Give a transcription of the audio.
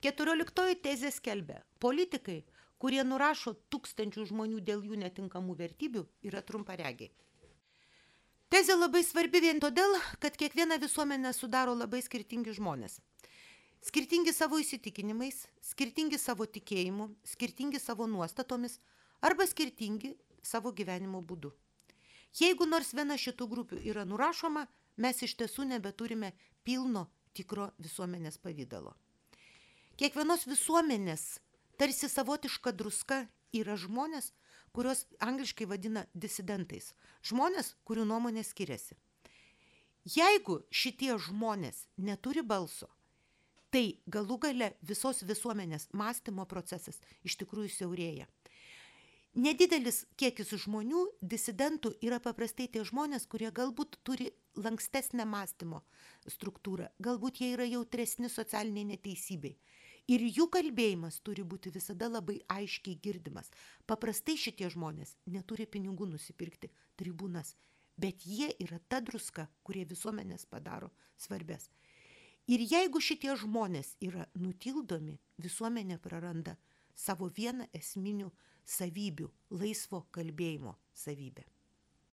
14 tezė skelbia, politikai, kurie nurašo tūkstančių žmonių dėl jų netinkamų vertybių, yra trumparegiai. Tezė labai svarbi vien todėl, kad kiekvieną visuomenę sudaro labai skirtingi žmonės. Skirtingi savo įsitikinimais, skirtingi savo tikėjimu, skirtingi savo nuostatomis arba skirtingi savo gyvenimo būdu. Jeigu nors viena šitų grupių yra nurašoma, mes iš tiesų nebeturime pilno tikro visuomenės pavydalo. Kiekvienos visuomenės tarsi savotiška druska yra žmonės, kurios angliškai vadina disidentais. Žmonės, kurių nuomonė skiriasi. Jeigu šitie žmonės neturi balso, tai galų gale visos visuomenės mąstymo procesas iš tikrųjų siaurėja. Nedidelis kiekis žmonių, disidentų, yra paprastai tie žmonės, kurie galbūt turi lankstesnę mąstymo struktūrą, galbūt jie yra jautresni socialiniai neteisybei. Ir jų kalbėjimas turi būti visada labai aiškiai girdimas. Paprastai šitie žmonės neturi pinigų nusipirkti tribūnas, bet jie yra ta druska, kurie visuomenės padaro svarbės. Ir jeigu šitie žmonės yra nutildomi, visuomenė praranda savo vieną esminių savybių, laisvo kalbėjimo savybę.